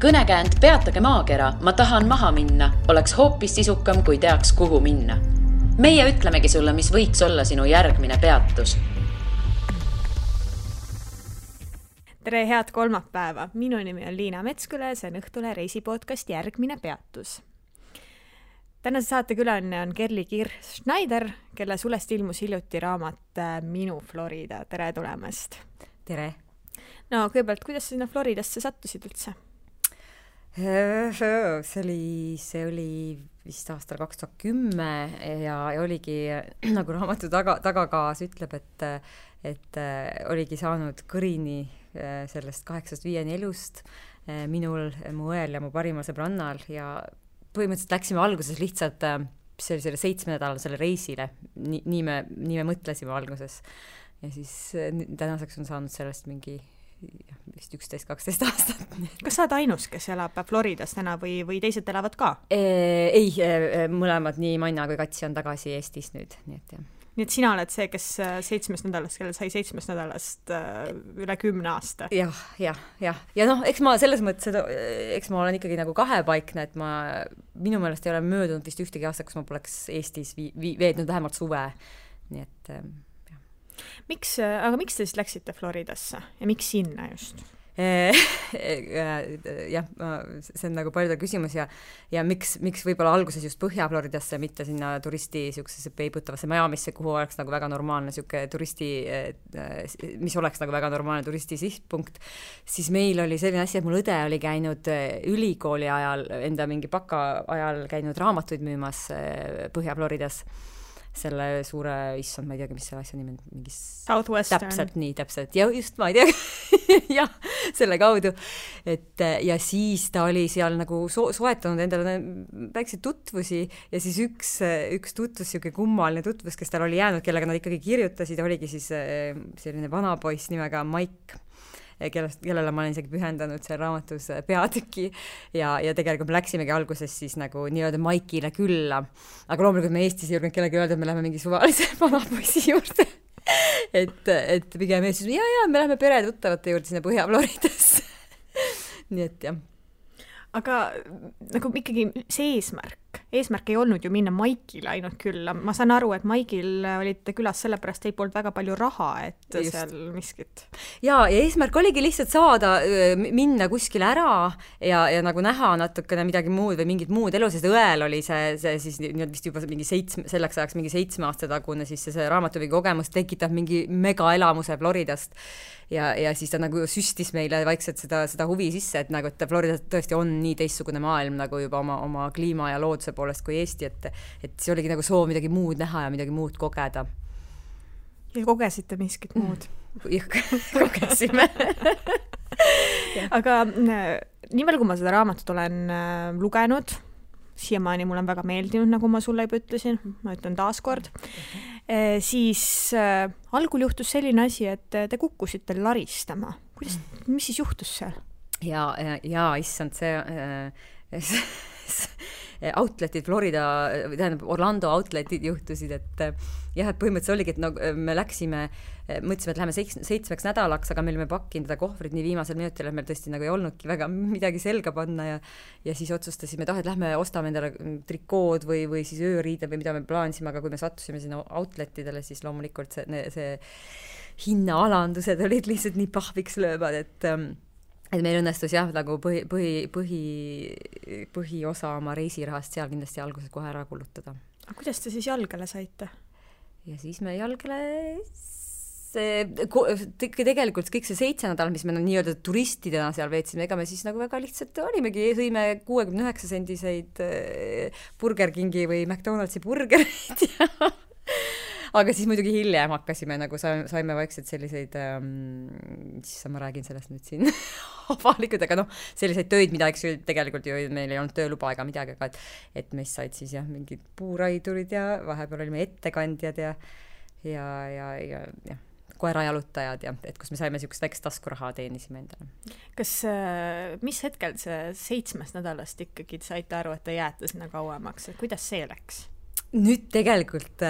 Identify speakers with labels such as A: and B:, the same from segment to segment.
A: Kõnekäänd Peatage maakera, ma tahan maha minna, oleks hoopis sisukam, kui teaks, kuhu minna. Meie ütlemegi sulle, mis võiks olla sinu järgmine peatus.
B: Tere, head kolmapäeva! Minu nimi on Liina Metsküle, see on Õhtule reisipodcast Järgmine peatus. Tänase saate külaline on Kerli Kirch-Schneider, kelle sulest ilmus hiljuti raamat Minu Florida. Tere tulemast!
C: Tere!
B: No kõigepealt, kuidas sinna Floridasse sattusid üldse?
C: See oli vist aastal 2010 ja oligi, nagu raamatu tagakaas ütleb, et oligi saanud kõrini sellest 8-5 elust minul, mu õel ja mu parimal sõbrannal ja põhimõtteliselt läksime alguses lihtsalt selle 7-nädalasele reisile. Nii me mõtlesime alguses. Ja siis tänaseks on saanud sellest mingi vist 11-12 aastat.
B: Kas sa oled ainus, kes elab Floridas täna või teised elavad ka?
C: Ei, mõlemad, nii Manna kui Katsi on tagasi Eestis nüüd.
B: Nii et sina oled see, kes 7 nädalast, kellel sai 7 nädalast üle 10 aasta.
C: Jah. Ja noh, eks ma selles mõttes, eks ma olen ikkagi nagu kahepaikne, et minu meelest ei ole möödunud vist ühtegi aasta, kus ma poleks Eestis veednud vähemalt suve. Nii et
B: Aga miks te siis läksite Floridasse ja miks sinna just?
C: Jah, see on nagu palju küsimus ja miks võib-olla alguses just Põhja-Floridasse, mitte sinna turisti siuksesse peibutavasse Miamisse, kuhu oleks nagu väga normaalne siuke turisti, mis oleks nagu väga normaalne turisti sihtpunkt, siis meil oli selline asi, et mul õde oli käinud ülikooli ajal, enda mingi baka ajal käinud raamatuid müümas Põhja-Floridas. Selle suure, issand, ma ei teagi, mis selle asja nimi on, mingis
B: Southwestern.
C: Täpselt, ja just, ma ei teagi, jah, selle kaudu, ja siis ta oli seal nagu soetanud endale väikseid tutvusi ja siis üks tutvus, siuke kummaline tutvus, kes tal oli jäänud, kellega nad ikkagi kirjutasid, oligi siis selline vanapoiss nimega Mike, kellele ma olen isegi pühendanud seal raamatus peatüki ja tegelikult me läksimegi alguses siis nagu nii-öelda Maikile külla, aga loomulikult me Eestis ei julgenud kellegi öelda, et me läheme mingi suvalise vanapoissi juurde et pigem Eestis, ja me läheme peretuttavate juurde sinna Põhja-Floridasse nii et jah.
B: Aga nagu ikkagi see eesmärk ei olnud ju minna Maikile ainult külla. Ma saan aru, et Maikil olite külas sellepärast ei polnud väga palju raha, et just seal miskit.
C: Ja eesmärk oligi lihtsalt saada, minna kuskile ära ja nagu näha natukene midagi muud või mingit muud elu, sest õel oli see siis vist juba mingi selleks ajaks mingi 7 aasta tagune, siis see raamatuvi kogemus tekitab mingi megaelamuse Floridast ja siis ta nagu süstis meile vaikselt seda huvi sisse, et nagu, et Florida tõesti on nii teistsugune maailm nagu juba oma kliima ja looduse poolest kui Eesti, et see oligi nagu soov midagi muud näha ja midagi muud kogeda.
B: Ja kogesite miskit muud?
C: Kogesime.
B: Aga nii palju, kui ma seda raamatut olen lugenud, siiamaani mul on väga meeldinud, nagu ma sulle juba ütlesin, ma ütlen taaskord, siis algul juhtus selline asi, et te kukkusite laristama. Mis siis juhtus seal?
C: Ja issand, outletid Florida, tähendab Orlando outletid juhtusid, et põhimõtteliselt oligi, et me läksime, mõtlesime, et läheme 7 nädalaks, aga me olime pakkinud seda kohvrit nii viimasel minutil, et meil tõesti nagu ei olnudki väga midagi selga panna ja siis otsustasime, et lähme ostame endale trikood või siis ööriided või mida me plaanisime, aga kui me sattusime sinna outletidele, siis loomulikult see hinnaalandused olid lihtsalt nii pahviks löövad, et meil õnnestus jah, nagu põhiosa oma reisirahast seal kindlasti alguses kohe ära kulutada.
B: Aga kuidas te siis jalgale saite? Ja
C: siis me jalgale tegelikult kõik see 7 nädal, mis me nii-öelda turistidena seal veetsime, ega me siis nagu väga lihtsalt olimegi, sõime 69 sendiseid Burger Kingi või McDonaldsi burgereid aga siis muidugi hiljem hakkasime, nagu saime vaikselt selliseid, siis ma räägin sellest nüüd siin avalikult, aga selliseid töid, mida eks ju tegelikult ju meil ei olnud tööluba ega midagi, aga et meist said siis jah, mingid puuraidurid ja vahepeal olime ettekandjad ja koerajalutajad ja et kus me saime siukest väikest taskuraha teenisime endale.
B: Kas, mis hetkel see 7 nädalast ikkagi saite aru, et te jääte sinna kauemaks? Kuidas see läks?
C: Nüüd tegelikult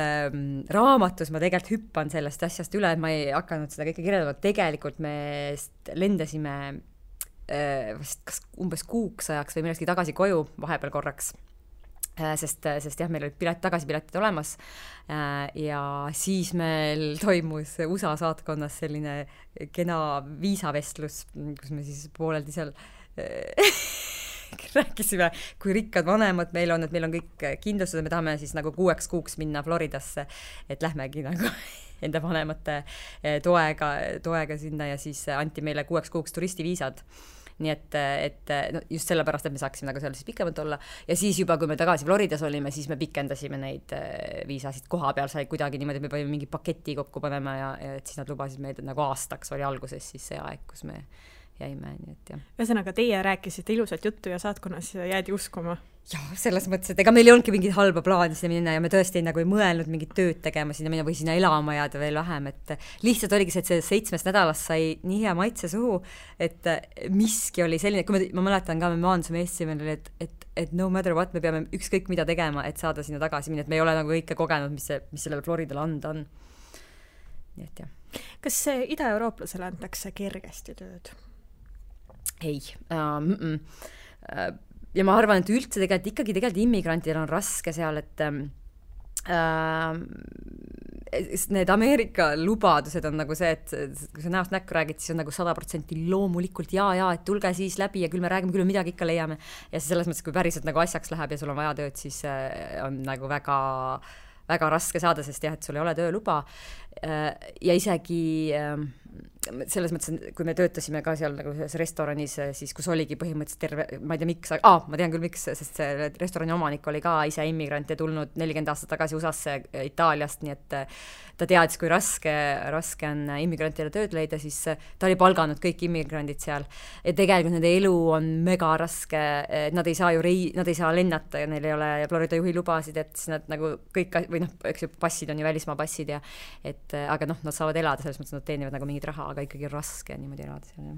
C: raamatus ma tegelikult hüppan sellest asjast üle, et ma ei hakanud seda kõike kirjeldama. Tegelikult me lendasime vist kas umbes kuuks ajaks või millestki tagasi koju vahepeal korraks. Sest jah, meil olid tagasipiletid olemas ja siis meil toimus USA saatkonnas selline kena viisavestlus, kus me siis pooleldi seal rääkisime, kui rikkad vanemad meil on, et meil on kõik kindlustused, me tahame siis nagu 6 kuuks minna Floridasse, et lähmegi nagu enda vanemate toega sinna ja siis anti meile 6 kuuks turistiviisad. Nii et no just sellepärast, et me saaksime nagu seal siis pikemalt olla ja siis juba, kui me tagasi Floridas olime, siis me pikendasime neid viisasid koha peal, sai kuidagi niimoodi, et me panime mingi paketi kokku panema ja et siis nad lubasid meid nagu aastaks oli alguses siis see aeg, kus me jäime, nii et jah.
B: Ühesõnaga, teie rääkisite ilusat juttu ja saatkonnas jäädi uskuma.
C: Jah, selles mõttes, et ega meil ei olnudki mingit halba plaani sinna minna ja me tõesti nagu ei mõelnud mingit tööd tegema sinna minna või sinna elama jääda veel vähem, et lihtsalt oligi see, et see 7 nädalast sai nii hea maitse suhu, et miski oli selline, kui ma mäletan ka, me maandusime Eestimel, et no matter what, me peame ükskõik mida tegema, et saada sinna tagasi minna, et me ei ole nagu kõike kogenud, mis sellele Floridale anda on. Nii et jah.
B: Kas ida-eurooplasele antakse kergesti tööd?
C: Ei. Ja ma arvan, et üldse tegelikult immigrantidel on raske seal, et need Ameerika lubadused on nagu see, et kui sa näost näkku räägid, siis on nagu 100% loomulikult ja, et tulge siis läbi ja küll me räägime, küll midagi ikka leiame. Ja selles mõttes, kui päriselt nagu asjaks läheb ja sul on vaja tööd, siis on nagu väga, väga raske saada, sest jah, et sul ei ole tööluba. Ja isegi selles mõttes, kui me töötasime ka seal nagu restoranis, siis kus oligi põhimõtteliselt terve, ma ei tea miks, ma tean küll miks, sest see restorani omanik oli ka ise immigrant ja tulnud 40 aastat tagasi USA-sse Itaaliast, nii et ta teadis, kui raske on immigrantidele tööd leida, siis ta oli palganud kõik immigrandid seal. Ja tegelikult nende elu on mega raske, nad ei saa nad ei saa lennata ja neil ei ole Florida juhi lubasid, et siis nad nagu kõik, või noh, eks ju passid on ju välismaa passid ja aga noh, nad saavad elada, selles mõttes nad teenivad nagu mingit raha, aga ikkagi raske niimoodi elada seal.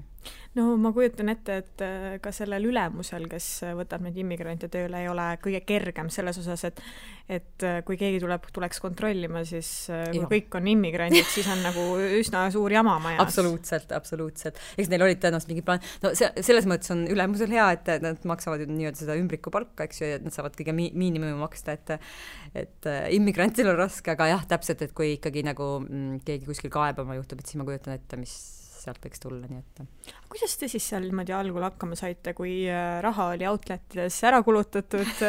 B: No ma kujutan ette, et ka sellel ülemusel, kes võtab neid immigrante tööle, ei ole kõige kergem selles osas, et kui keegi tuleks kontrollima, siis kui kõik on immigrandid, siis on nagu üsna suur jama majas.
C: Absoluutselt. Eks neil olid tõenäoliselt mingi plaan. No selles mõttes on ülemusel hea, et nad maksavad nii-öelda seda ümbriku palka, eks ju, et nad saavad kõige miinimumi maksta, et immigrantil on raske, aga jah, täpselt, et kui ikkagi nagu keegi kuskil kaebama juhtub, et siis ma kujutan ette, mis sealt võiks tulla, nii et.
B: Kuidas te siis seal niimoodi algul hakkama saite, kui raha oli outletides ära kulutatud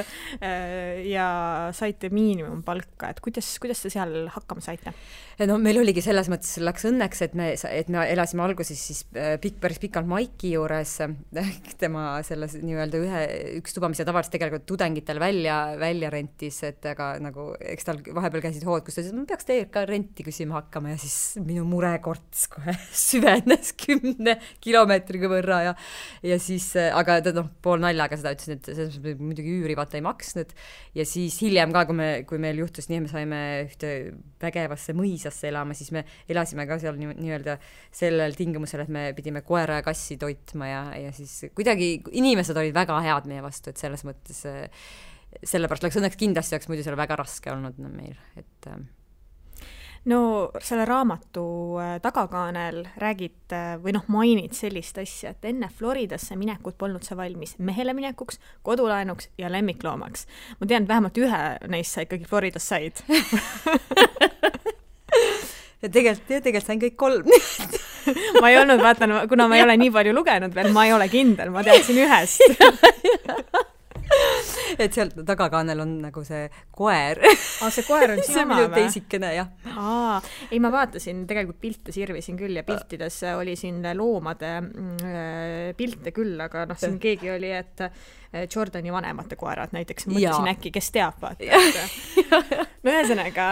B: ja saite miinimumpalka, et kuidas te seal hakkama saite?
C: No meil oligi selles mõttes, läks õnneks, et me elasime alguses siis päris pikalt Maiki juures, tema selles nii-öelda üks tuba, mis tavaliselt tegelikult tudengitel välja rentis, et aga nagu, eks tal vahepeal käisid hood, kus ta ütles, et ma peaks teie ka renti küsima hakkama ja siis minu murekorts kohe süvenes 10 kilomeetriga võrra ja siis, aga ta pool naljaga seda ütles, et selles mõttes muidugi üüri vaata ei maksnud ja siis hiljem ka, kui meil juhtus nii, me saime ühte vägevasse mõisasse elama, siis me elasime ka seal nii-öelda sellel tingimusel, et me pidime koera ja kassi toitma ja siis kuidagi inimesed olid väga head meie vastu, et selles mõttes sellepärast läks õnneks kindlasti oleks muidu seal väga raske olnud meil, et
B: No selle raamatu tagakaanel räägid või mainid sellist asja, et enne Floridasse minekut polnud sa valmis mehele minekuks, kodulaenuks ja lemmikloomaks. Ma tean, et vähemalt ühe neist sa ikkagi Floridas said.
C: Ja tegelikult sain kõik 3.
B: Ma ei olnud, vaatan, kuna ma ei ole nii palju lugenud veel, ma ei ole kindel, ma teadsin ühest.
C: Et seal tagakaanel on nagu see koer.
B: See koer on
C: see minu teisikene, jah.
B: Ei, ma vaatasin, tegelikult pilte sirvisin küll ja piltides oli siin loomade pilte küll, aga siin keegi oli, et Jordani vanemate koerad näiteks, mõtlesin äkki, kes teab, vaata. No ühesõnaga,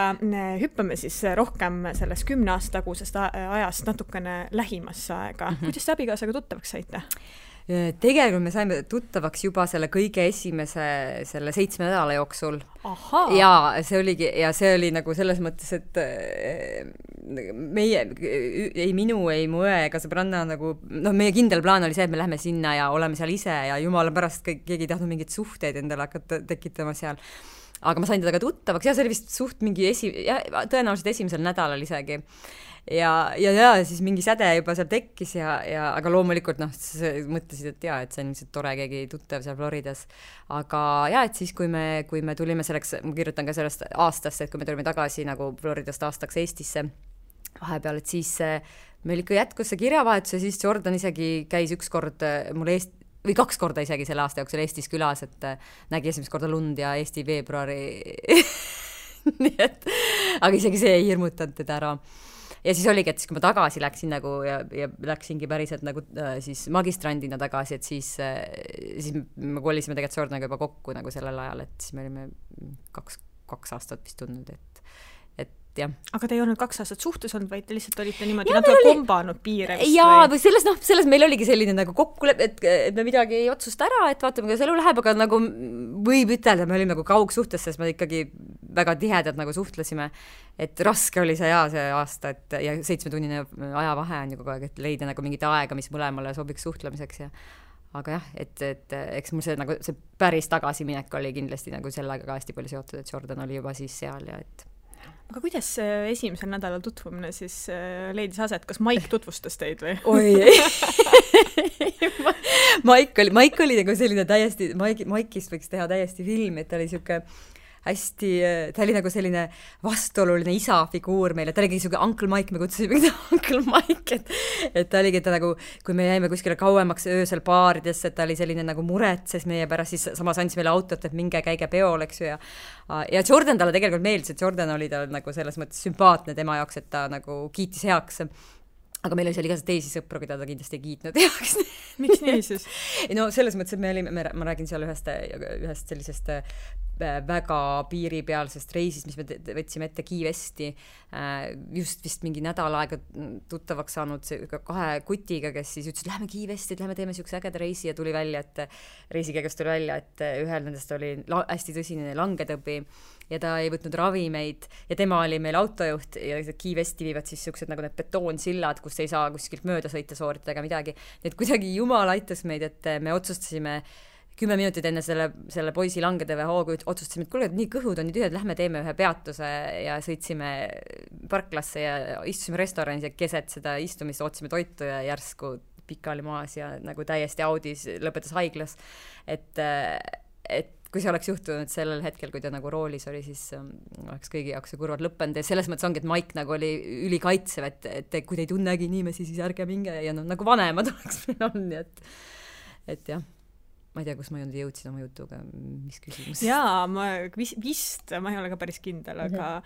B: hüppame siis rohkem sellest 10 aasta tagusest ajast natukene lähimasse aega. Kuidas te abikaasaga tuttavaks saite?
C: Tegelikult me saime tuttavaks juba selle kõige esimese selle 7 nädala jooksul. Ja see oli nagu selles mõttes, et minu ei mu õe ega sõbranna nagu, meie kindel plaan oli see, et me lähme sinna ja oleme seal ise ja jumala pärast keegi ei tahtnud mingeid suhteid endale hakata tekitama seal. Aga ma sain teda ka tuttavaks ja see oli vist suht mingi tõenäoliselt esimesel nädalal isegi. ja siis mingi säde juba seal tekkis aga loomulikult mõtlesid, et et see on ilmselt tore keegi tuttav seal Floridas. Aga et siis, kui me tulime selleks, ma kirjutan ka sellest aastast, et kui me tulime tagasi nagu Floridast aastaks Eestisse vahepeal, et siis meil ikka jätkus see kirjavahetus ja siis Jordan isegi käis üks kord mul või 2 korda isegi selle aasta jooksul Eestis külas, et nägi esimest korda lund ja Eesti veebruari nii et, aga isegi see ei hirmutanud teda ära. Ja siis oligi, et siis kui ma tagasi läksin nagu ja läksingi päriselt nagu siis magistrandina tagasi, et siis me kolisime tegelikult Jordaniga juba kokku nagu sellel ajal, et siis me olime 2 aastat vist tundnud, et jah.
B: Aga te ei olnud 2 aastat suhtes olnud, vaid te lihtsalt olite niimoodi natuke kombanud piire vist?
C: Jaa, või selles meil oligi selline nagu kokkulepe, et me midagi ei otsusta ära, et vaatame, kuidas elu läheb, aga nagu võib ütelda, me olime nagu kaugsuhtes, sest me ikkagi väga tihedalt nagu suhtlesime, et raske oli see aasta, ja 7-tunnine ajavahe on ju kogu aeg, et leida nagu mingit aega, mis mõlemale sobiks suhtlemiseks aga jah, et eks mul see päris tagasiminek oli kindlasti nagu sellega ka hästi palju seotud, et Jordan oli juba siis seal ja et
B: aga kuidas esimesel nädalal tutvumine siis leidis aset? Kas Maik tutvustas teid või?
C: Oi, Maik oli nagu selline täiesti, Maikist võiks teha täiesti film, et ta oli siuke hästi, ta oli nagu selline vastuoluline isa-figuur meile, ta oligi siuke Uncle Mike, me kutsusime Uncle Mike, et ta oligi ta nagu, kui me jäime kuskile kauemaks öösel baaridesse, et ta oli selline nagu muretses meie pärast, siis samas andis meile autot, et minge käige peol, eks ju, ja Jordan talle tegelikult meeldis, et Jordan oli tal nagu selles mõttes sümpaatne tema jaoks, et ta nagu kiitis heaks, aga meil oli seal igast teisi sõpru, keda ta kindlasti ei kiitnud heaks.
B: Miks nii siis?
C: No selles mõttes, et ma räägin seal ühest sellisest väga piiripealsest reisist, mis me võtsime ette Key Westi, just vist mingi nädal aega tuttavaks saanud 2 kutiga, kes siis ütlesid, lähme Key Westi, lähme teeme siukse ägeda reisi ja tuli välja, et reisikäigust tuli välja, et ühel nendest oli hästi tõsine langetõbi ja ta ei võtnud ravimeid ja tema oli meil autojuht ja Key Westi viivad siis siuksed nagu need betoonsillad, kus ei saa kuskilt mööda sõita, sooritada ega midagi. Nii et kuidagi jumal aitas meid, et me otsustasime 10 minutit enne selle poisi langetõve hoogu otsustasime, et kuule, nii kõhud on nii tühjad, lähme teeme ühe peatuse ja sõitsime parklasse ja istusime restoranis ja keset seda istumist ootasime toitu ja järsku pikali maas ja nagu täiesti audis lõpetas haiglas. Et kui see oleks juhtunud sellel hetkel, kui ta nagu roolis oli, siis oleks kõigi jaoks see kurvad lõppenud ja selles mõttes ongi, et Mike nagu oli ülikaitsev, et kui te ei tunnegi inimesi, siis ärge minge ja nagu vanemad oleks meil on, et jah. Ma ei tea, kus ma jõudsin oma jutuga, mis küsimus?
B: Jaa, ma ei ole ka päris kindel, aga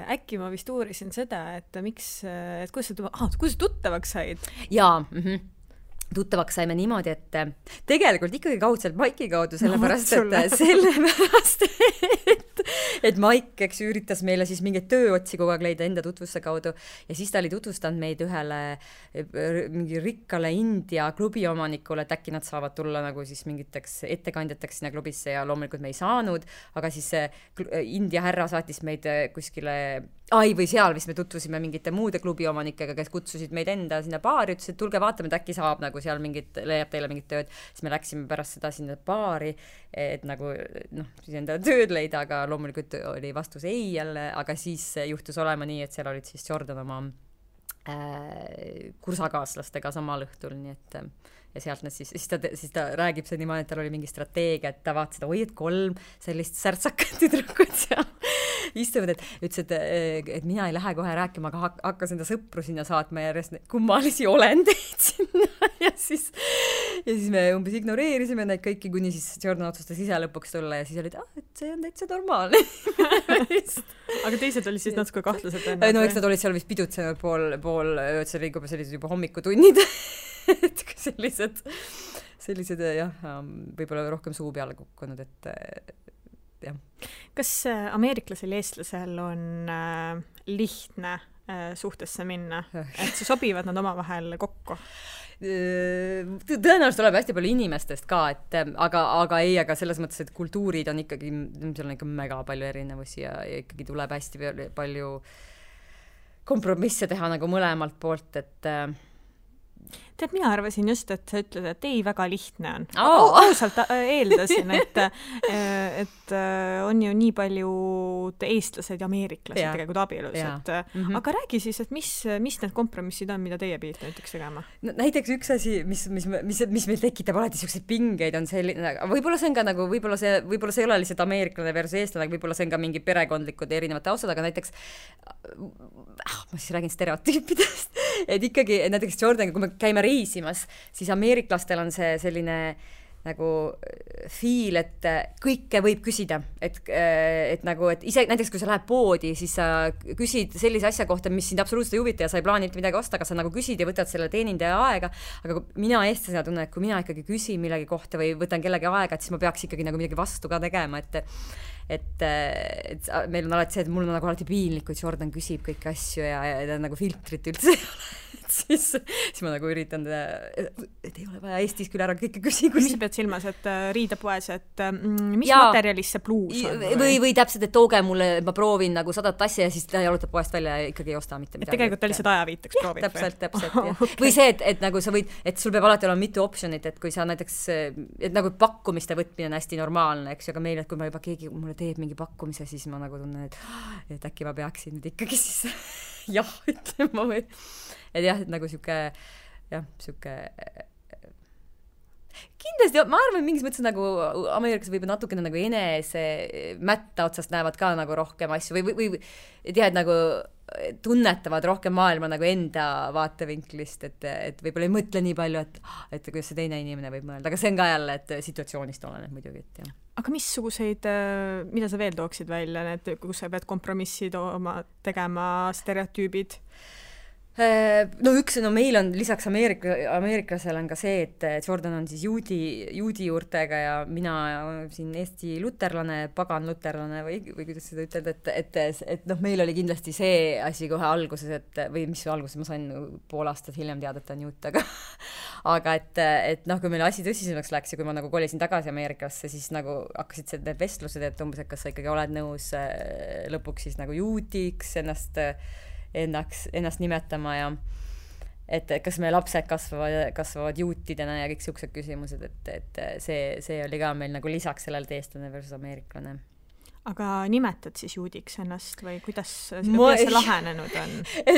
B: äkki ma vist uurisin seda, et kuidas tuttavaks said?
C: Jaa, tuttavaks saime niimoodi, et tegelikult ikkagi kaudselt Maiki kaudu, sellepärast, et Maik, eks üritas meile siis mingeid tööotsi kogu aeg leida enda tutvuste kaudu ja siis ta oli tutvustanud meid ühele mingi rikkale India klubi omanikule, et äkki nad saavad tulla nagu siis mingiteks ettekandjateks sinna klubisse ja loomulikult me ei saanud, aga siis India härra saatis meid kuskile või seal vist me tutvusime mingite muude klubi omanikega, kes kutsusid meid enda sinna baari, ütles, et tulge vaatame, et äkki saab nagu seal leiab teile mingit tööd, siis me läksime pärast seda sinna baari, et nagu siis enda tööd leida, aga loomulikult oli vastus ei jälle, aga siis juhtus olema nii, et seal olid siis Jordan oma kursakaaslastega samal õhtul, nii et ja sealt nad siis ta räägib see niimoodi, et tal oli mingi strateegia, et ta vaatas seda, et 3 sellist särtsakat tüdrukut seal istuvad, et ütles, et mina ei lähe kohe rääkima, aga hakkas enda sõpru sinna saatma järjest kummalisi olendeid sinna ja siis me umbes ignoreerisime neid kõiki, kuni siis Jordan otsustas ise lõpuks tulla ja siis olid, et see on täitsa normaalne.
B: Aga teised olid siis natuke kahtlased?
C: No eks nad olid seal vist pidutsenud pool ööd, see liigub sellised juba hommikutunnid et sellised jah, võib-olla rohkem suu peale kukkunud, et jah.
B: Kas ameeriklasel ja eestlasel on lihtne suhtesse minna, et sobivad nad omavahel kokku?
C: Tõenäoliselt tuleb hästi palju inimestest ka, et aga selles mõttes, et kultuurid on ikkagi, seal on ikka mega palju erinevusi ja ikkagi tuleb hästi palju kompromisse teha nagu mõlemalt poolt, et
B: Tead, mina arvasin just, et sa ütled, et ei, väga lihtne on. Ausalt eeldasin, et on ju nii palju eestlased ja ameeriklased tegelikult abielus. Aga räägi siis, et mis need kompromissid on, mida teie pidite näiteks tegema?
C: No, näiteks üks asi, mis meil tekitab alati selliseid pingeid, on selline, võib-olla see on ka nagu, võib-olla see ei ole lihtsalt ameeriklane versus eestlane, võib-olla see on ka mingi perekondlikud erinevate taustad, aga näiteks ma siis räägin stereotüüpidest, et ikkagi näiteks Jordaniga, kui me käime reisimas, siis ameeriklastel on see selline nagu feel, et kõike võib küsida, et ise näiteks kui sa lähed poodi, siis sa küsid sellise asja kohta, mis sind absoluutselt ei huvita ja sa ei plaani midagi osta, aga sa nagu küsid ja võtad selle teenindaja aega, aga mina eestlasena tunnen, et kui mina ikkagi küsin millegi kohta või võtan kellegi aega, et siis ma peaks ikkagi nagu midagi vastu ka tegema, et meil on alati see, et mul on nagu alati piinlik, kui Jordan küsib kõiki asju ja nagu filtrit üldse ei ole. Siis ma nagu üritan, et ei ole vaja Eestis küll ära kõike küsi.
B: Mis sa pead silmas, et riidepoes, et mis materialist see pluus on?
C: Või täpselt, et tooge mulle, ma proovin nagu 100 asja ja siis ta jalutab poest välja ja ikkagi ei osta mitte midagi.
B: Et tegelikult ta lihtsalt ajaviitaks proovid.
C: Täpselt. Okay. Või see, et nagu sa võid, et sul peab alati olema mitu optionit, et kui sa näiteks, et nagu pakkumiste võtmine on hästi normaalne, eks ju, aga meil, et kui ma juba keegi mulle teeb mingi pakkumise, siis ma nagu tunnen, et äkki ma peaksin nüüd ikkagi siis jah ütlema või et jah, et nagu siuke kindlasti, ma arvan, mingis mõttes nagu ameeriklased võib natukene nagu enese mätta otsast näevad ka nagu rohkem asju või et jah, et nagu tunnetavad rohkem maailma nagu enda vaatevinklist, et võib-olla ei mõtle nii palju, et kuidas see teine inimene võib mõelda, aga see on ka jälle, et situatsioonist oleneb muidugi, et jah.
B: Aga missuguseid, mida sa veel tooksid välja, need, kus sa pead kompromissid tegema stereotüübid?
C: No meil on lisaks ameeriklasel on ka see, et Jordan on siis juudi juurtega ja mina siin Eesti luterlane, pagan luterlane või kuidas seda ütelda, et meil oli kindlasti see asi kohe alguses, või mis alguses ma sain pool aastat hiljem teada, et ta on juut, aga et kui meil asi tõsisemaks läks ja kui ma nagu kolisin tagasi Ameerikasse, siis nagu hakkasid need vestlused, et umbes, et kas sa ikkagi oled nõus lõpuks siis nagu juudiks ennast nimetama ja et kas meie lapsed kasvavad juutidena ja kõik siuksed küsimused, et see oli ka meil nagu lisaks sellele eestlane versus ameeriklane.
B: Aga nimetad siis juudiks ennast või kuidas see lahenenud on?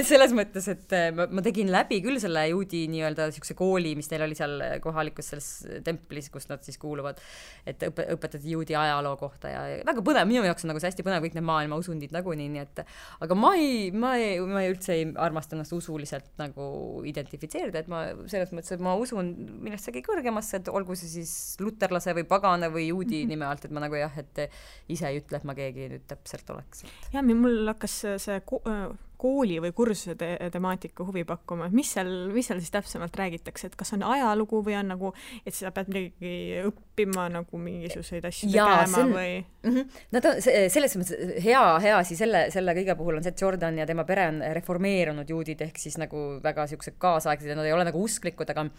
C: Selles mõttes, et ma tegin läbi küll selle juudi nii-öelda siukse kooli, mis neil oli seal kohalikus selles templis, kus nad siis kuuluvad, et õpetati juudi ajaloo kohta ja väga põnev, minu jaoks on nagu see hästi põnev kõik need maailma usundid nagunii, nii et aga ma ei üldse ei armasta ennast usuliselt nagu identifitseerida, et ma selles mõttes, et ma usun millestki kõrgemasse, et olgu see siis luterlase või pagana või juudi nime alt, et ma nagu jah, et ise ei ütle, et ma keegi nüüd täpselt oleks.
B: Ja, mul hakkas see kooli või kursuse temaatika huvi pakkuma. Mis seal siis täpsemalt räägitakse, et kas on ajalugu või on nagu, et sa pead midagi õppima nagu mingisuguseid asju tegema või?
C: Nad on selles mõttes hea asi selle kõige puhul on see, et Jordan ja tema pere on reformeerunud juudid ehk siis nagu väga siuksed kaasaegsed ja nad ei ole nagu usklikud, aga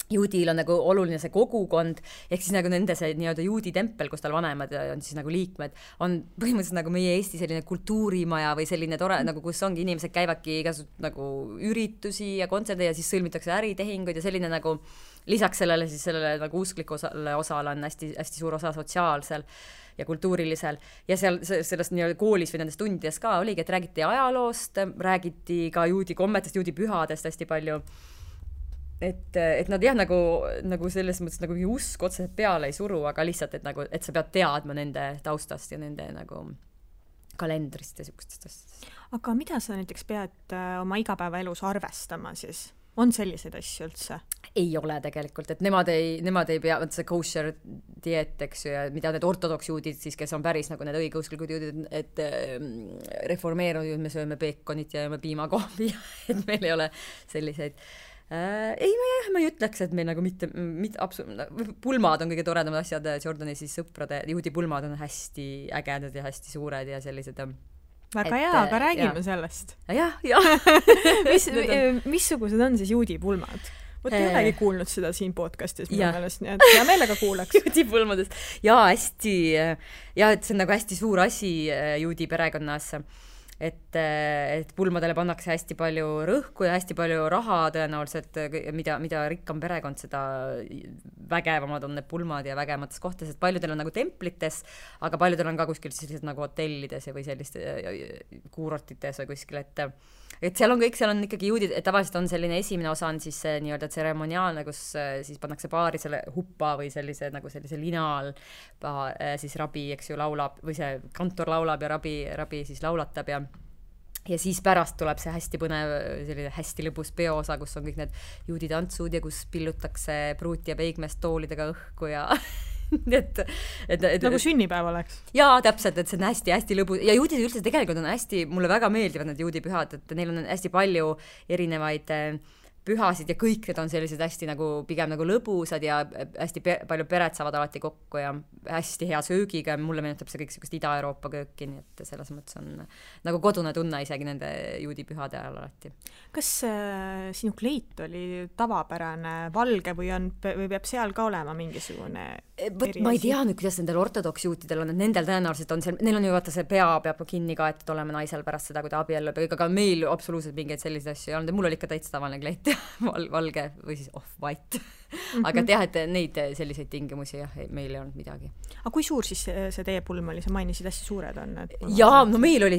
C: juudil on nagu oluline see kogukond, ehk siis nagu nende see nii-öelda juudi tempel, kus tal vanemad on siis nagu liikmed, on põhimõtteliselt nagu meie Eesti selline kultuurimaja või selline tore, nagu kus ongi inimesed käivadki igasugused nagu üritusi ja kontserde ja siis sõlmitakse äritehinguid ja selline nagu lisaks sellele nagu usklikule osale on hästi suur osa sotsiaalsel ja kultuurilisel ja sellest nii-öelda koolis või nendes tundides ka oligi, et räägiti ajaloost, räägiti ka juudi kommetest, juudi pühadest hästi palju. Et nad jah, nagu selles mõttes nagu usk otseselt peale ei suru, aga lihtsalt, et sa pead teadma nende taustast ja nende nagu kalendrist ja siukestest asjadest.
B: Aga mida sa näiteks pead oma igapäevaelus arvestama siis? On selliseid asju üldse?
C: Ei ole tegelikult, et nemad ei pea, see kosher dieet, eks ju, ja mida need ortodoksjuudid siis, kes on päris nagu need õigeusklikud juudid, et reformeerunud, me sööme peekonit ja jääme piimakoobi, et meil ei ole selliseid ma ei ütleks, et meil nagu mitte pulmad on kõige toredamad asjad, Jordani siis sõprade, juudi pulmad on hästi ägedad ja hästi suured ja sellised
B: väga hea, aga räägime sellest.
C: Jah.
B: Missugused on siis juudi pulmad? Võt ei olegi kuulnud seda siin podcastis minu meelest, nii et hea meelega kuulaks.
C: Juudi pulmadest. Et see on nagu hästi suur asi juudi perekonnas. et pulmadele pannakse hästi palju rõhku ja hästi palju raha tõenäoliselt, mida rikkam perekond, seda vägevamad on need pulmad ja vägemates kohtades, et paljudel on nagu templites, aga paljudel on ka kuskil sellised nagu hotellides või selliste kuurortites või kuskil, et seal on kõik, seal on ikkagi juudid, et tavaliselt on selline esimene osa on siis nii-öelda tseremoniaalne, kus siis pannakse paari selle huppa või sellise lina all siis rabi, eks ju, laulab või see kantor laulab ja rabi siis laulatab ja siis pärast tuleb see hästi põnev, selline hästi lõbus peoosa, kus on kõik need juudi tantsud ja kus pillutakse pruuti ja peigmest toolidega õhku ja et
B: nagu sünnipäev oleks.
C: Jaa, täpselt, et see on hästi lõbus ja juudid üldse tegelikult on hästi, mulle väga meeldivad need juudipühad, et neil on hästi palju erinevaid pühasid ja kõik need on sellised hästi nagu pigem nagu lõbusad ja hästi palju pered saavad alati kokku ja hästi hea söögiga ja mulle meenutab see kõik sellist Ida-Euroopa kööki, nii et selles mõttes on nagu kodune tunne isegi nende juudipühade ajal alati.
B: Kas sinu kleit oli tavapärane valge või peab seal ka olema mingisugune
C: ma ei tea nüüd, kuidas nendel ortodoksjuutidel on, et nendel tõenäoliselt on seal, neil on ju vaata see pea peab kinni kaetud olema naisel pärast seda, kui ta abiellub, aga meil absoluutselt mingeid selliseid asju ei olnud ja mul oli ikka täitsa tavaline kleit valge või siis off-white aga teha, et neid selliseid tingimusi jah, meil ei olnud midagi.
B: Aga kui suur siis see teie pulm oli? Sa mainisid hästi suured on.
C: Jaa, no meil oli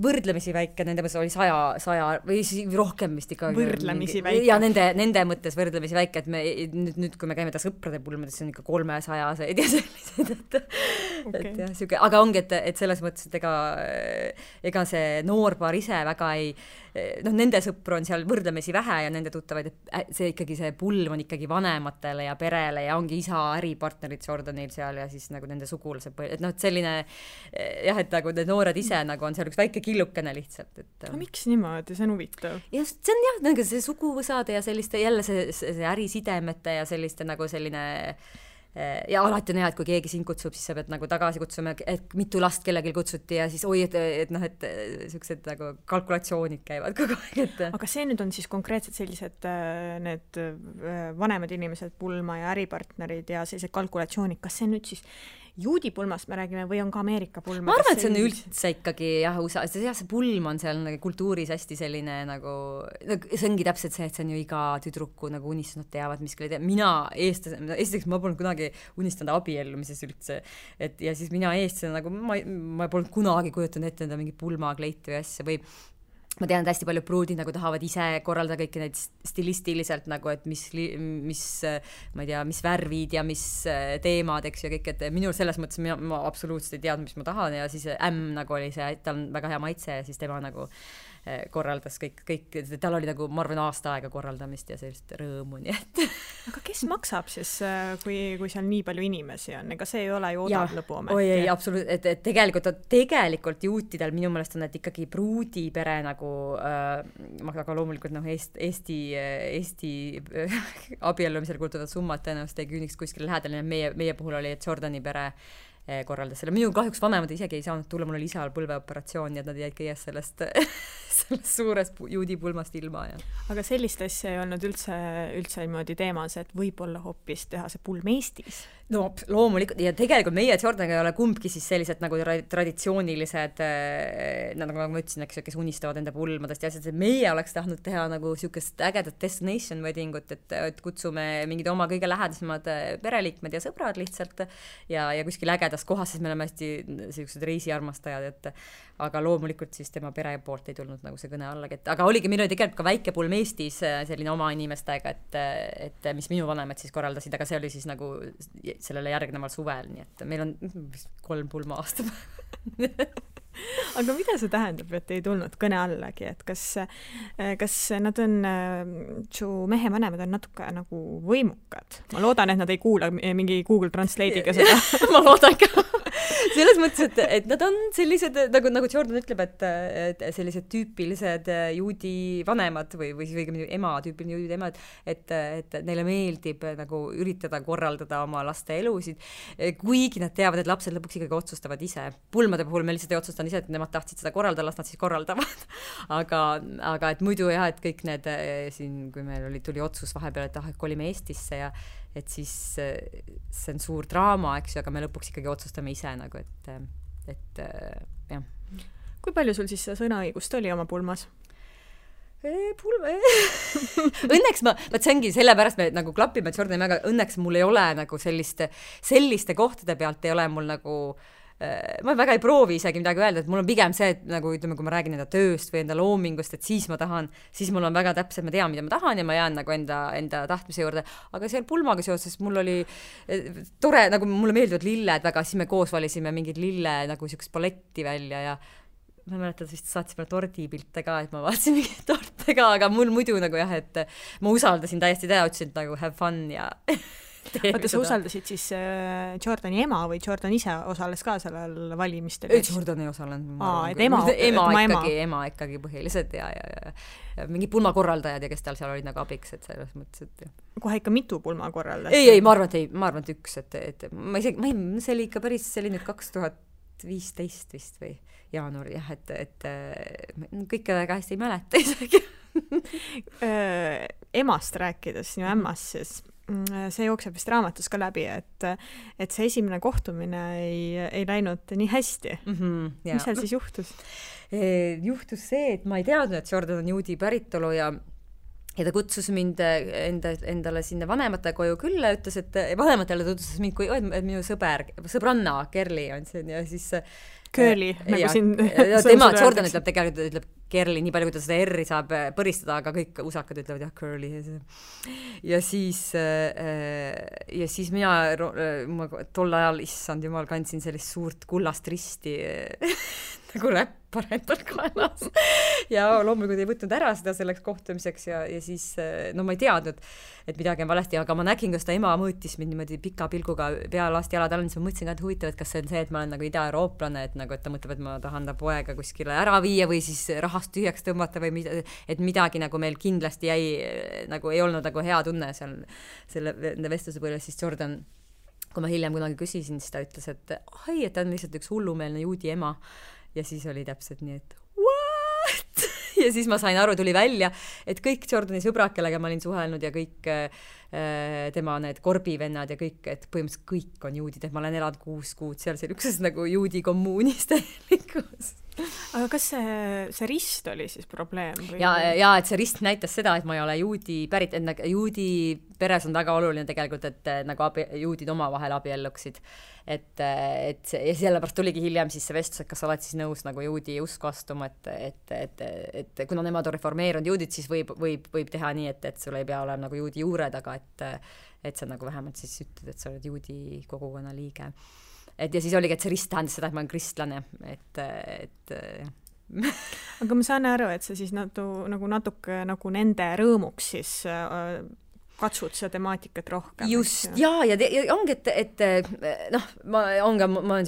C: võrdlemisi väike, nende mõttes oli 100 või rohkem vist ikka.
B: Võrdlemisi väike.
C: Ja nende mõttes võrdlemisi väike, et me nüüd kui me käime ta sõprade pulmades, see on ikka 300-seid ja sellised, et jah, siuke, aga ongi, et selles mõttes, et ega see noorpaar ise väga ei, nende sõpru on seal võrdlemisi vähe ja nende tuttavaid, et see ikkagi see pulm on ikkagi vanematele ja perele ja ongi isa äripartnerid Jordanil seal ja siis nagu nende sugulased, et et selline jah, et nagu need noored ise nagu on seal üks väike killukene lihtsalt, et
B: no miks niimoodi, see on huvitav?
C: Ja see on jah, nagu see suguvõsade ja selliste jälle see ärisidemete ja selliste nagu selline ja alati on hea, et kui keegi sind kutsub, siis sa pead nagu tagasi kutsuma, et mitu last kellelgi kutsuti ja siis et sellised nagu kalkulatsioonid käivad kogu aeg,
B: Aga see nüüd on siis konkreetselt sellised need vanemad inimesed, pulma ja äripartnerid ja sellised kalkulatsioonid, kas see nüüd siis juudi pulmast me räägime või on ka Ameerika pulm?
C: Ma arvan, et see on üldse ikkagi jah, see pulm on seal nagu kultuuris hästi selline nagu, see ongi täpselt see, et see on ju iga tüdruku nagu unistus, nad teavad, mis küll ei tea. Mina esiteks ma polnud kunagi unistanud abiellumises üldse, et ja siis mina eestlasena nagu ma polnud kunagi kujutanud ette enda mingi pulmakleiti või asja või ma tean, et hästi palju pruudid nagu tahavad ise korraldada kõiki neid stilistiliselt nagu, et mis ma ei tea, mis värvid ja mis teemad, eks ju, kõik, et minul selles mõttes ma absoluutselt ei teadnud, mis ma tahan ja siis nagu oli see, tal on väga hea maitse ja siis tema nagu korraldas kõik, tal oli nagu, ma arvan, aasta aega korraldamist ja sellist rõõmu, nii et
B: Aga kes maksab siis, kui seal nii palju inimesi on? Ega see ei ole ju odav lõbu ometi.
C: Oi, ei, absoluutselt, et tegelikult juutidel minu meelest on, et ikkagi pruudipere nagu aga loomulikult Eesti abiellumisel kultuvad summad tõenäoliselt ei küüniks kuskil lähedal, meie puhul oli, et Jordani pere korraldas selle. Minul kahjuks vanemad isegi ei saanud tulla, mul oli isal põlveoperatsioon ja nad jäid kõiges sellest suurest juudi pulmast ilma. Ja.
B: Aga sellist asja ei olnud üldse niimoodi teemas, et võib-olla hoopis teha see pulm Eestis?
C: No loomulikult, ja tegelikult meie Jordaniga ei ole kumbki siis sellised nagu traditsioonilised, nagu ma ütlesin, kes unistavad enda pulmadest ja asjad, et meie oleks tahtnud teha nagu siukest ägedat destination weddingut, et kutsume mingid oma kõige lähedasemad pereliikmed ja sõbrad lihtsalt ja kuskil ägedas kohas, siis me oleme hästi sellised reisiarmastajad, et aga loomulikult siis tema pere poolt ei tulnud nagu see kõne allagi, aga oligi, meil oli tegelikult ka väike pulm Eestis selline oma inimestega, et mis minu vanemad siis korraldasid, aga see oli siis nagu sellele järgneval suvel, nii et meil on 3 pulma aastapäeva.
B: Aga mida see tähendab, et ei tulnud kõne allagi, et kas nad on, su mehe vanemad on natuke nagu võimukad? Ma loodan, et nad ei kuula mingi Google Translate'iga seda.
C: Ma loodan ka. Selles mõttes, et nad on sellised, nagu Jordan ütleb, et sellised tüüpilised juudi vanemad või ema, tüüpiline juudi emad, et neile meeldib nagu üritada korraldada oma laste elusid, kuigi nad teavad, et lapsed lõpuks ikkagi otsustavad ise. Pulmade puhul me lihtsalt ei otsustanud ise, et nemad tahtsid seda korraldada, las nad siis korraldavad. Aga et muidu jah, et kõik need siin, kui meil tuli otsus vahepeal, et kolime Eestisse ja et siis see on suur draama, eks ju, aga me lõpuks ikkagi otsustame ise nagu, et jah.
B: Kui palju sul siis sõnaõigust oli oma pulmas?
C: Õnneks vaat see ongi sellepärast me nagu klapime Jordani, aga õnneks mul ei ole nagu selliste kohtade pealt ei ole mul nagu ma väga ei proovi isegi midagi öelda, et mul on pigem see, et nagu ütleme, kui ma räägin enda tööst või enda loomingust, et siis mul on väga täpselt, ma tean, mida ma tahan ja ma jään nagu enda tahtmise juurde, aga seal pulmaga seoses mul oli tore, nagu mulle meeldivad lilled väga, siis me koos valisime mingid lille nagu siukest paletti välja ja ma mäletan, vist saatsime tordipilte ka, et ma vaatasin mingit torte ka, aga mul muidu nagu jah, et ma usaldasin täiesti ütlesin, et nagu have fun ja
B: Oota, sa usaldasid siis Jordani ema või Jordan ise osales ka sellel valimistel?
C: Jordan ei osalenud. Ema ikkagi põhiliselt ja mingi pulmakorraldajad ja kes tal seal olid nagu abiks, et selles mõttes, et
B: kohe ikka mitu pulmakorraldajat?
C: Ei, ma arvan, et üks, et see oli ikka päris, see oli nüüd 2015 vist või jaanuar, jah, et kõike väga hästi ei mäleta isegi.
B: Emast rääkides, sinu ämmast siis, see jookseb vist raamatus ka läbi, et see esimene kohtumine ei läinud nii hästi. Mis seal siis juhtus?
C: Juhtus see, et ma ei teadnud, et Jordan on juudi päritolu ja ta kutsus mind endale sinna vanemate koju külla, ütles, et vanematele tutvustas mind kui minu sõbranna Kerli on see ja siis
B: Curly, nagu siin
C: tema Jordan ütleb Kerli, nii palju, kui ta seda R-i saab põristada, aga kõik usakad ütlevad jah, Curly. Ja siis mina tol ajal, issand jumal, kandsin sellist suurt kullast risti nagu räppar endal kaelas. Ja loomulikult ei võtnud ära seda selleks kohtumiseks ja siis, no ma ei teadnud, et midagi on valesti, aga ma nägin, kas ta ema mõõtis mind niimoodi pika pilguga pealast jalad all, siis ma mõtlesin ka, et huvitav, et kas see on see, et ma olen nagu ida-eurooplane, et ta mõtleb, et ma tahan ta poega kuskile ära viia või siis rahast tühjaks tõmmata või et midagi nagu meil kindlasti jäi, nagu ei olnud nagu hea tunne seal selle vestluse põhjal, siis Jordan, kui ma hiljem kunagi küsisin, siis ta ütles, et ta on lihtsalt üks hullumeelne juudi ema ja siis oli täpselt nii, et what? Ja siis ma sain aru, tuli välja, et kõik Jordani sõbrad, kellega ma olin suhelnud ja kõik tema need korbivennad ja kõik, et põhimõtteliselt kõik on juudid, et ma olen elanud 6 kuud seal ükses nagu juudi kommuunis täielikus.
B: Aga kas see rist oli siis probleem? Või?
C: Ja et see rist näitas seda, et ma ei ole juudi pärit, et juudi peres on väga oluline tegelikult, et nagu juudid omavahel abielluksid. Ja sellepärast tuligi hiljem siis see vestlus, et kas oled siis nõus nagu juudi usku astuma, et kuna nemad on reformeerunud juudid, siis võib teha nii, et sul ei pea olema nagu juudi juured, aga et sa nagu vähemalt siis ütled, et sa oled juudi kogukonna liige. Ja siis oligi, et see rist tähendas seda, et ma olen kristlane,
B: Aga ma saan aru, et see siis nagu natuke nagu nende rõõmuks siis katsud seda temaatikat rohkem.
C: Just, ja ongi, et noh, ma olen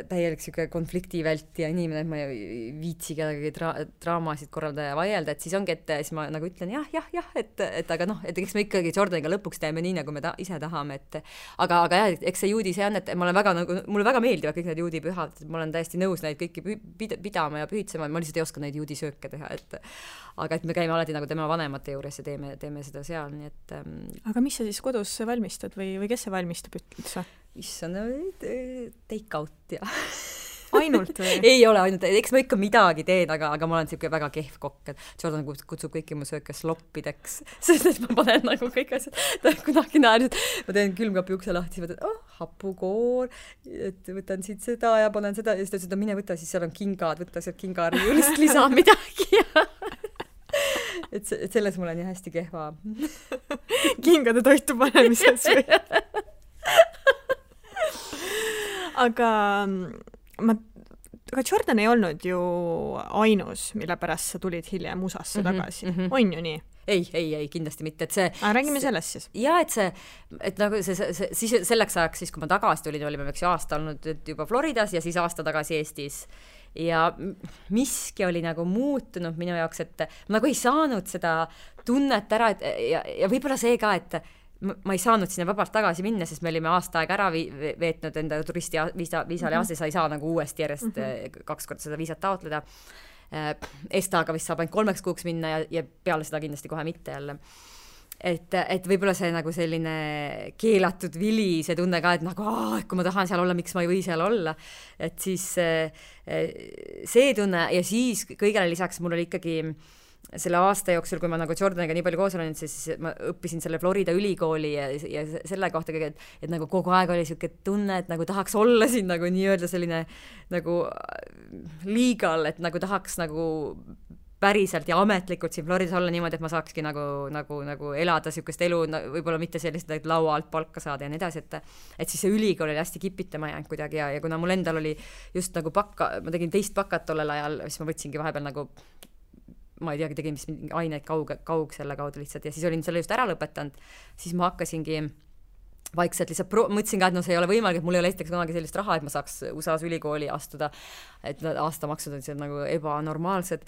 C: täielik konfliktivälti ja inimene, et ma ei viitsi kedagi draamasid korralda ja vaielda, et siis ongi, et siis ma nagu ütlen jah, et aga noh, et eks me ikkagi Jordaniga lõpuks teeme nii, nagu me ise tahame, aga jah, eks see juudi see on, et ma olen väga nagu, mulle väga meeldivad kõik need juudi pühad, ma olen täiesti nõus neid kõiki pidama ja pühitsema, ma lihtsalt ei oska neid juudi sööke teha, aga et me käime alati nagu tema vanemate juures ja teeme seda seal, nii et
B: Aga mis sa siis kodus valmistad või kes see valmistab üldse?
C: Issand, take out ja
B: Ainult või?
C: Ei ole ainult, eks ma ikka midagi teen, aga ma olen siuke väga kehv kokk, et Jordan kutsub kõiki mu sööke sloppideks, sest et ma panen nagu kõik asjad, ta kunagi näen, et ma teen külmkapi ukse lahti, siis võtan, hapukoor, et võtan siit seda ja panen seda ja siis ta ütles, et mine võta, siis seal on kingad, võta sealt kingariiulist lisa midagi et selles mul on nii hästi kehva
B: kingade toitu panemises või? aga Jordan ei olnud ju ainus, mille pärast sa tulid hiljem USA-sse tagasi. On ju nii?
C: Ei, kindlasti mitte, et see
B: räägime sellest siis.
C: Ja, et nagu siis selleks ajaks, siis kui ma tagasi tulin, olime aasta olnud juba Floridas ja siis aasta tagasi Eestis. Ja miski oli nagu muutunud minu jaoks, et ma nagu ei saanud seda tunnet ära, ja võib-olla see ka, et ma ei saanud sinna vabalt tagasi minna, sest me olime aasta aega ära veetnud enda turisti viisale ja sa ei saa nagu uuesti järjest 2 korda seda viisat taotleda. Estaga vist saab ainult 3 kuuks minna ja peale seda kindlasti kohe mitte jälle. et võib-olla see nagu selline keelatud vili, see tunne ka, et nagu kui ma tahan seal olla, miks ma ei või seal olla, et siis see tunne ja siis kõigele lisaks mul oli ikkagi selle aasta jooksul, kui ma nagu Jordaniga nii palju koos olen, siis ma õppisin selle Florida ülikooli ja selle kohta kõige, et nagu kogu aeg oli siuke tunne, et nagu tahaks olla siin nagu nii-öelda selline nagu legal, et nagu tahaks nagu päriselt ja ametlikult siin Floridas olla niimoodi, et ma saakski nagu elada siukest elu, võib-olla mitte sellist, et laua alt palka saada ja nii edasi, et siis see ülikool oli hästi kipitama jäänud kuidagi ja kuna mul endal oli just nagu ma tegin 2 bakat tollel ajal, siis ma võtsingi vahepeal nagu ma ei teagi, tegin vist mingi aineid kaug selle kaudu lihtsalt ja siis olin selle just ära lõpetanud, siis ma hakkasingi vaikselt lihtsalt mõtlesin ka, et see ei ole võimalik, et mul ei ole esiteks kunagi sellist raha, et ma saaks USA-s ülikooli astuda, et aastamaksud on seal nagu ebanormaalsed.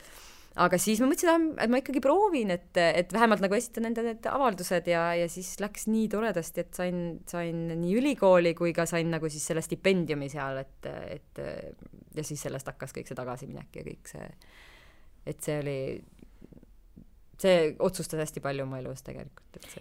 C: Aga siis ma mõtlesin, et ma ikkagi proovin, et vähemalt nagu esitan enda need avaldused ja siis läks nii toredasti, et sain nii ülikooli kui ka sain nagu siis selle stipendiumi seal, et ja siis sellest hakkas kõik see tagasiminek ja kõik see, et see otsustas hästi palju oma elus tegelikult.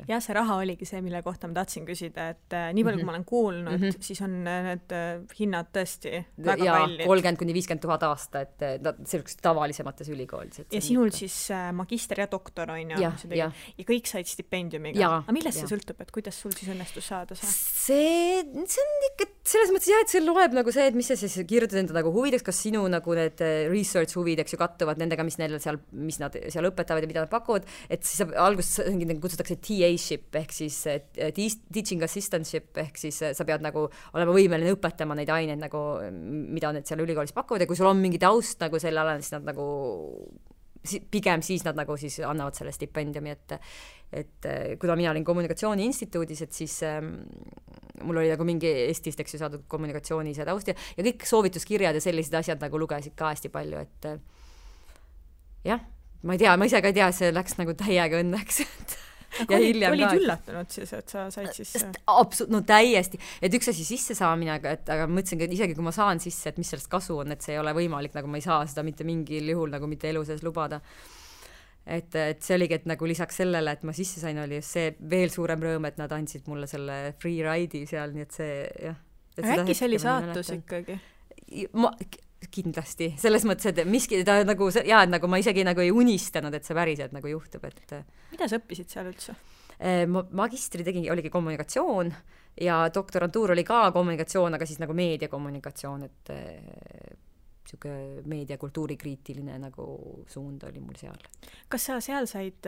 B: Ja see raha oligi see, mille kohta ma tahtsin küsida, et nii palju, kui ma olen kuulnud, siis on need hinnad tõesti väga kallid.
C: 30,000–50,000 aasta, et selliseks tavalisemates ülikoolides.
B: Ja sinul siis magister ja doktor on ju. Ja kõik said stipendiumiga. Aga millest see sõltub, et kuidas sul siis õnnestus saada see?
C: See on ikka selles mõttes et see loeb nagu see, et mis sa siis kirjutad enda nagu huvideks, kas sinu nagu need research huvideks ju kattuvad nendega, mis nad seal õpetavad ja mida nad pakuvad, et siis alguses kutsutakse TA-ship ehk siis teaching assistantship ehk siis sa pead nagu olema võimeline õpetama neid aineid nagu, mida need seal ülikoolis pakuvad ja kui sul on mingi taust nagu selle alal, siis nad nagu pigem siis nad nagu siis annavad selle stipendiumi, et kuna mina olin kommunikatsiooni instituudis, et siis mul oli nagu mingi Eestist, eks ju, saadud kommunikatsiooni see taust ja kõik soovituskirjad ja sellised asjad nagu lugesid ka hästi palju, et jah, ma ei tea, ma ise ka ei tea, see läks nagu täiega õnneks,
B: ja olid üllatunud siis, et sa said siis
C: no täiesti, et üks asi sisse saamine, aga mõtlesin, et isegi kui ma saan sisse, et mis sellest kasu on, et see ei ole võimalik, nagu ma ei saa seda mitte mingil juhul nagu mitte elu sees lubada. Et see oligi, et nagu lisaks sellele, et ma sisse sain, oli just see veel suurem rõõm, et nad andsid mulle selle free ride'i seal, nii et see jah.
B: Äkki see oli saatus ikkagi?
C: Kindlasti, selles mõttes, et miski ta nagu, et nagu ma isegi nagu ei unistanud, et see päriselt nagu juhtub, et
B: mida sa õppisid seal üldse?
C: Magistri oligi kommunikatsioon ja doktorantuur oli ka kommunikatsioon, aga siis nagu meediakommunikatsioon, et siuke meediakultuurikriitiline nagu suund oli mul seal. Kas
B: sa seal said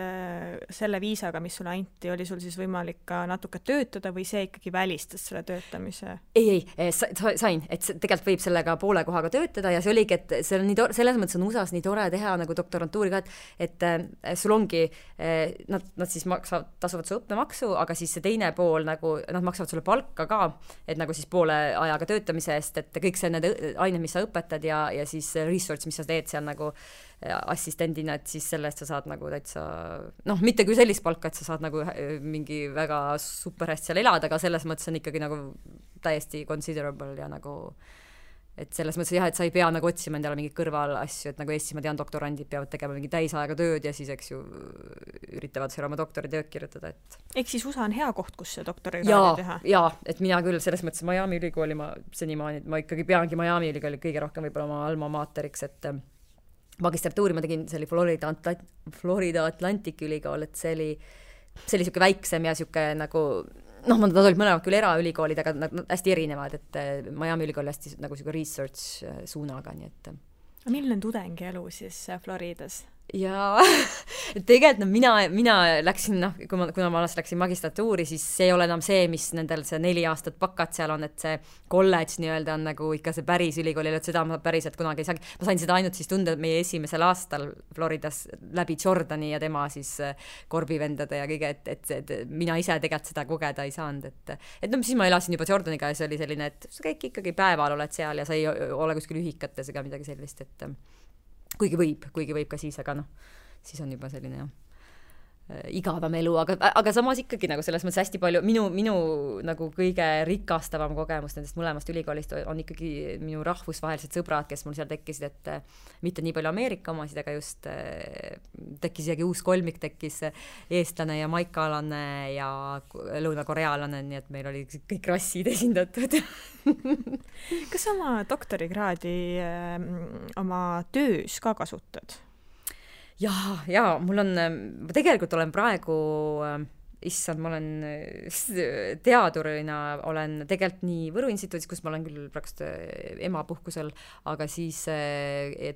B: selle viisaga, mis sulle anti, oli sul siis võimalik ka natuke töötada või see ikkagi välistas selle töötamise?
C: Ei, sain, et tegelikult võib sellega poole kohaga töötada ja see oligi, et see on nii selles mõttes on USA-s nii tore teha nagu doktorantuuri ka, et sul ongi, nad siis tasuvad su õppemaksu, aga siis see teine pool nagu, nad maksavad sulle palka ka, et nagu siis poole ajaga töötamise eest, et kõik see need ained, mis sa õpetad ja siis research, mis sa teed seal nagu assistendina, et siis selle eest sa saad nagu täitsa, mitte küll sellist palka, et sa saad nagu mingi väga super hästi seal elada, aga selles mõttes on ikkagi nagu täiesti considerable ja nagu, et selles mõttes jah, et sa ei pea nagu otsima endale mingit kõrval asju, et nagu Eestis ma tean, doktorandid peavad tegema mingi täisajaga tööd ja siis, eks ju, üritavad seal oma doktoritööd kirjutada, et
B: ehk siis USA on hea koht, kus see doktorikraadi teha?
C: Jaa, et mina küll selles mõttes Miami ülikooli ma ikkagi peangi Miami ülikooli kõige rohkem võib-olla oma alma materiks, et magistratuuri ma tegin, see oli Florida Atlantic ülikool, et see oli siuke väiksem ja siuke nagu nad olid mõlemad küll eraülikoolid, aga nad hästi erinevad, et Miami ülikool hästi nagu siuke research suunaga, nii et
B: milline tudengi elu siis Floridas?
C: Ja tegelikult mina läksin, kuna ma alles läksin magistratuuri, siis see ei ole enam see, mis nendel see 4 aastat bakat seal on, et see kolledž nii-öelda on nagu ikka see päris ülikool, et seda ma päriselt kunagi ei saagi. Ma sain seda ainult siis tunda meie esimesel aastal Floridas läbi Jordani ja tema siis korbivendade ja kõige, et mina ise tegelikult seda kogeda ei saanud, et siis ma elasin juba Jordaniga ja see oli selline, et sa kõik ikkagi päeval oled seal ja sa ei ole kuskil ühikates ega midagi sellist, et kuigi võib ka siis, aga siis on juba selline jah. igavam elu, aga samas ikkagi nagu selles mõttes hästi palju, minu nagu kõige rikastavam kogemus nendest mõlemast ülikoolist on ikkagi minu rahvusvahelised sõbrad, kes mul seal tekkisid, et mitte nii palju Ameerika omasid, aga just tekkis isegi uus kolmik, tekkis eestlane ja maikaalane ja lõunakoreaalane, nii et meil oli kõik rassid esindatud.
B: Kas oma doktorikraadi oma töös ka kasutad?
C: Ja mul on, ma tegelikult olen praegu, issand, ma olen teadurina, olen tegelikult nii Võru instituudis, kus ma olen küll praegu emapuhkusel, aga siis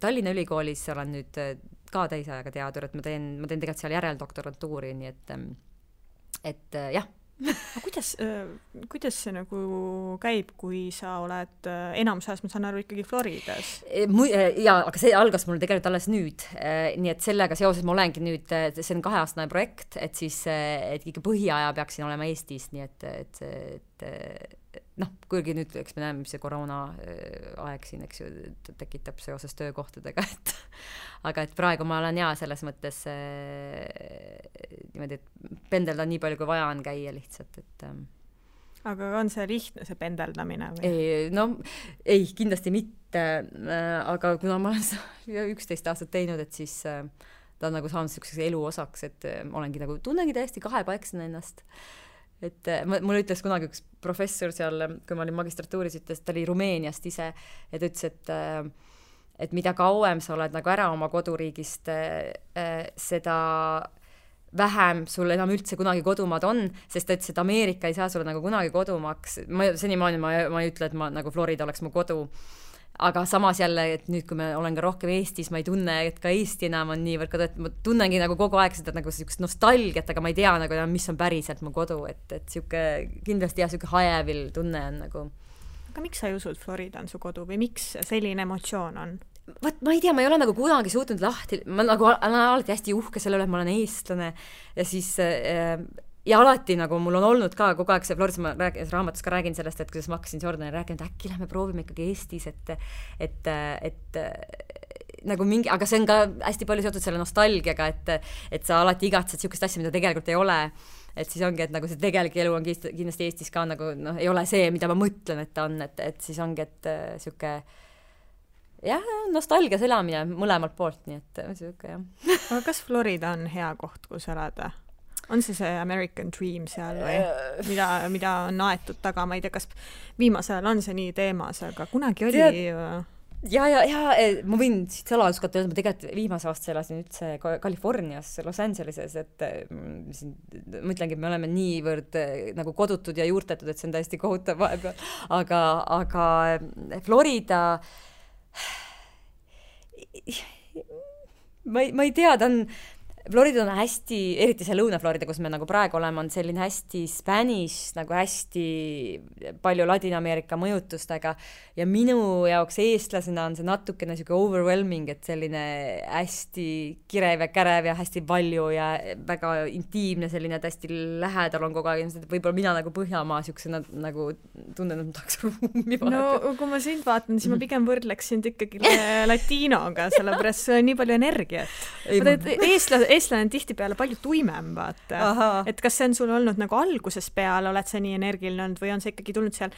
C: Tallinna ülikoolis olen nüüd ka täisajaga teadur, et ma teen tegelikult seal järeldoktorantuuri, nii et jah. Kuidas see nagu käib, kui sa oled enamus ajast, ma saan aru, ikkagi Floridas? Jaa, aga see algas mul tegelikult alles nüüd. Nii et sellega seoses ma olengi nüüd, see on 2-aastane projekt, et siis et ikka põhiaja peaksin olema Eestis, nii et kuigi nüüd, eks me näeme, mis see koroona aeg siin, eks ju, tekitab seoses töökohtadega, aga et praegu ma olen selles mõttes niimoodi, et pendeldan nii palju, kui vaja on käia lihtsalt, et
B: aga on see lihtne, see pendeldamine?
C: Ei, kindlasti mitte, aga kuna ma olen 11 aastat teinud, et siis ta on nagu saanud selliseks elu osaks, et olengi nagu, tunnengi täiesti kahepaiksen ennast. Et mul ütles kunagi üks professor seal, kui ma olin magistratuuris, ütles, ta oli Rumeeniast ise, et ütles, et mida kauem sa oled nagu ära oma koduriigist, seda vähem sul enam üldse kunagi kodumaad on, sest ta ütles, et Ameerika ei saa sulle nagu kunagi kodumaaks. Senimaani ma ei ütle, et nagu Florida oleks mu kodu. Aga samas jälle, et nüüd, kui ma olen ka rohkem Eestis, ma ei tunne, et ka Eesti enam on niivõrd kodu, et ma tunnengi nagu kogu aeg seda nagu sellist nostalgiat, aga ma ei tea nagu, mis on päriselt mu kodu, et siuke, kindlasti siuke hajevil tunne on nagu.
B: Aga miks sa ei usu, et Florida on su kodu või miks selline emotsioon on?
C: Ma ei tea, ma ei ole nagu kunagi suutnud lahti, ma nagu olen alati hästi uhke selle üle, et ma olen eestlane ja siis ja alati nagu mul on olnud ka kogu aeg see Floridas, ma raamatus ka räägin sellest, et kuidas ma hakkasin Jordanile rääkima, et äkki lähme proovime ikkagi Eestis, et nagu mingi, aga see on ka hästi palju seotud selle nostalgiaga, et sa alati igatsed siukest asja, mida tegelikult ei ole, et siis ongi, et nagu see tegelik elu on kindlasti Eestis ka nagu, ei ole see, mida ma mõtlen, et ta on, et siis ongi, et siuke nostalgia elamine mõlemalt poolt, nii et siuke
B: Aga kas Florida on hea koht, kus elada? On see American Dream seal või mida on aetud taga, ma ei tea, kas viimasel on see nii teemas, aga kunagi oli
C: Ja ma võin siit saladuskata öelda, ma tegelikult viimase aasta elasin üldse Californias, Los Angeleses, et ma ütlengi, et me oleme niivõrd nagu kodutud ja juurtetud, et see on täiesti kohutav vahepeal, aga Florida ma ei tea, ta on Florida on hästi, eriti see Lõuna-Florida, kus me nagu praegu oleme, on selline hästi Spanish, nagu hästi palju Ladina-Ameerika mõjutustega ja minu jaoks eestlasena on see natukene siuke overwhelming, et selline hästi kirev ja kärev ja hästi palju ja väga intiimne selline, et hästi lähedal on kogu aeg, võib-olla mina nagu Põhjamaa siuksena nagu tunnen, et ma tahaks ruumi vaadata.
B: No kui ma sind vaatan, siis ma pigem võrdleks sind ikkagi latinoga, sellepärast see on nii palju energiat. Eestlane on tihtipeale palju tuimem, vaata. Et kas see on sul olnud nagu alguses peale, oled sa nii energiline olnud või on see ikkagi tulnud seal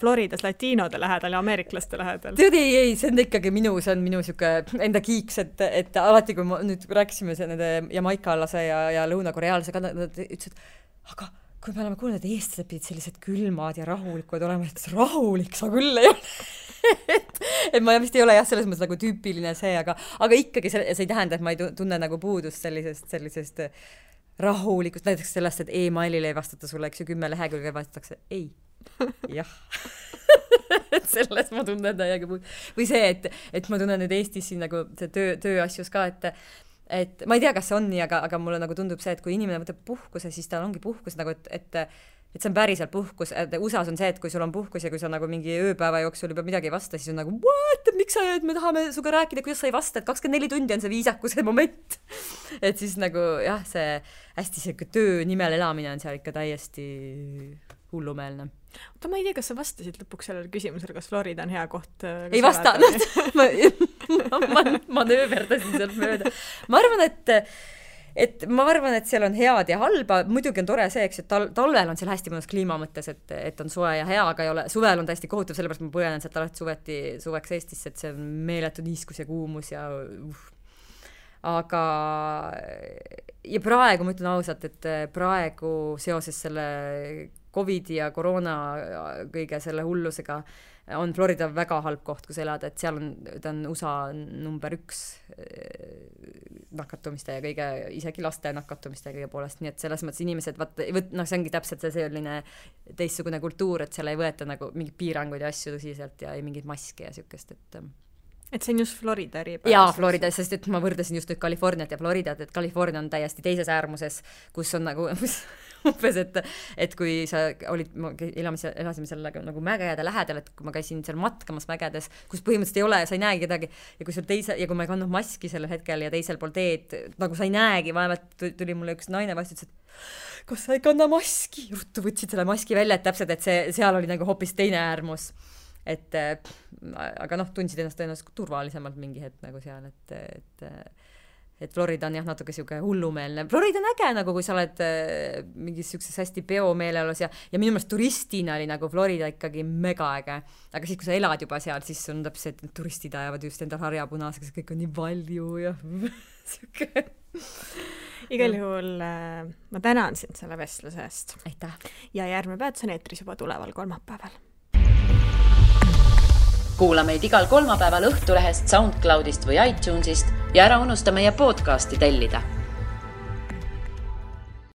B: Floridas latiinode lähedal ja ameeriklaste lähedal?
C: Tead, ei, see on ikkagi minu siuke enda kiiks, et alati, kui ma nüüd rääkisime nende jamaikaalase ja lõunakoreaalase, nad ütlesid, aga kui me oleme kuulnud, et eestlased pidid sellised külmad ja rahulikud olema, et rahulik sa küll ei ole. et ma vist ei ole selles mõttes nagu tüüpiline see, aga ikkagi see ei tähenda, et ma ei tunne nagu puudust sellisest rahulikust, näiteks sellest, et e-mailile ei vastata sulle, eks ju, 10 lehekülge vastatakse ei. Jah. et selles ma tunnen täiega või see, et ma tunnen nüüd Eestis siin nagu see tööasjus ka, et ma ei tea, kas see on nii, aga mulle nagu tundub see, et kui inimene võtab puhkuse, siis tal ongi puhkus nagu, et see on päriselt puhkus. USA-s on see, et kui sul on puhkus ja kui sa nagu mingi ööpäeva jooksul juba midagi ei vasta, siis on nagu, what, miks sa me tahame suga rääkida, kuidas sa ei vasta, et 24 tundi on see viisakuse moment. et siis nagu jah, see hästi selline töö nimel elamine on seal ikka täiesti hullumeelne.
B: Oota, ma ei tea, kas sa vastasid lõpuks sellele küsimusele, kas Florida on hea koht?
C: Ei vastanud. ma nööverdasin sealt mööda. Ma arvan, et ma arvan, et seal on head ja halba, muidugi on tore see, eks, et talvel on seal hästi mõnus kliima mõttes, et on soe ja hea, aga ei ole, suvel on täiesti kohutav, sellepärast ma põenen sealt alati suveks Eestisse, et see on meeletu niiskus ja kuumus ja aga ja praegu ma ütlen ausalt, et praegu seoses selle Covidi ja koroona kõige selle hullusega on Florida väga halb koht, kus elada, et seal ta on USA number 1 nakatumiste ja kõige, isegi laste nakatumiste ja kõige poolest, nii et selles mõttes inimesed, see ongi täpselt see selline teistsugune kultuur, et seal ei võeta nagu mingeid piiranguid ja asju tõsiselt ja ei mingeid maske ja siukest,
B: et see on just Florida eripärast.
C: Jaa, Florida, sest et ma võrdasin just nüüd Californiat ja Floridat, et California on täiesti teises äärmuses, kus on nagu umbes, et kui sa olid, elasime seal nagu mägede lähedal, et kui ma käisin seal matkamas mägedes, kus põhimõtteliselt ei ole, sa ei näegi kedagi ja kui ma ei kandnud maski sellel hetkel ja teisel pool teed, nagu sa ei näegi, vaevalt tuli mulle üks naine vastu, ütles, et kas sa ei kanna maski? Ruttu võtsid selle maski välja, et täpselt, et seal oli nagu hoopis teine äärmus. Aga tundsid ennast tõenäoliselt turvalisemalt mingi hetk nagu seal, et Florida on jah natuke siuke hullumeelne. Florida on äge nagu, kui sa oled mingis siukses hästi peomeeleolus ja minu meelest turistina oli nagu Florida ikkagi mega äge. Aga siis, kui sa elad juba seal, siis on täpselt, et turistid ajavad just endal harjapunaseks, kõik on nii palju ja siuke.
B: Igal juhul ma tänan sind selle vestluse eest.
C: Aitäh.
B: Ja järgmine peatus on eetris juba tuleval kolmapäeval.
A: Kuula meid igal kolmapäeval Õhtulehest, SoundCloudist või iTunesist ja ära unusta meie podcasti tellida.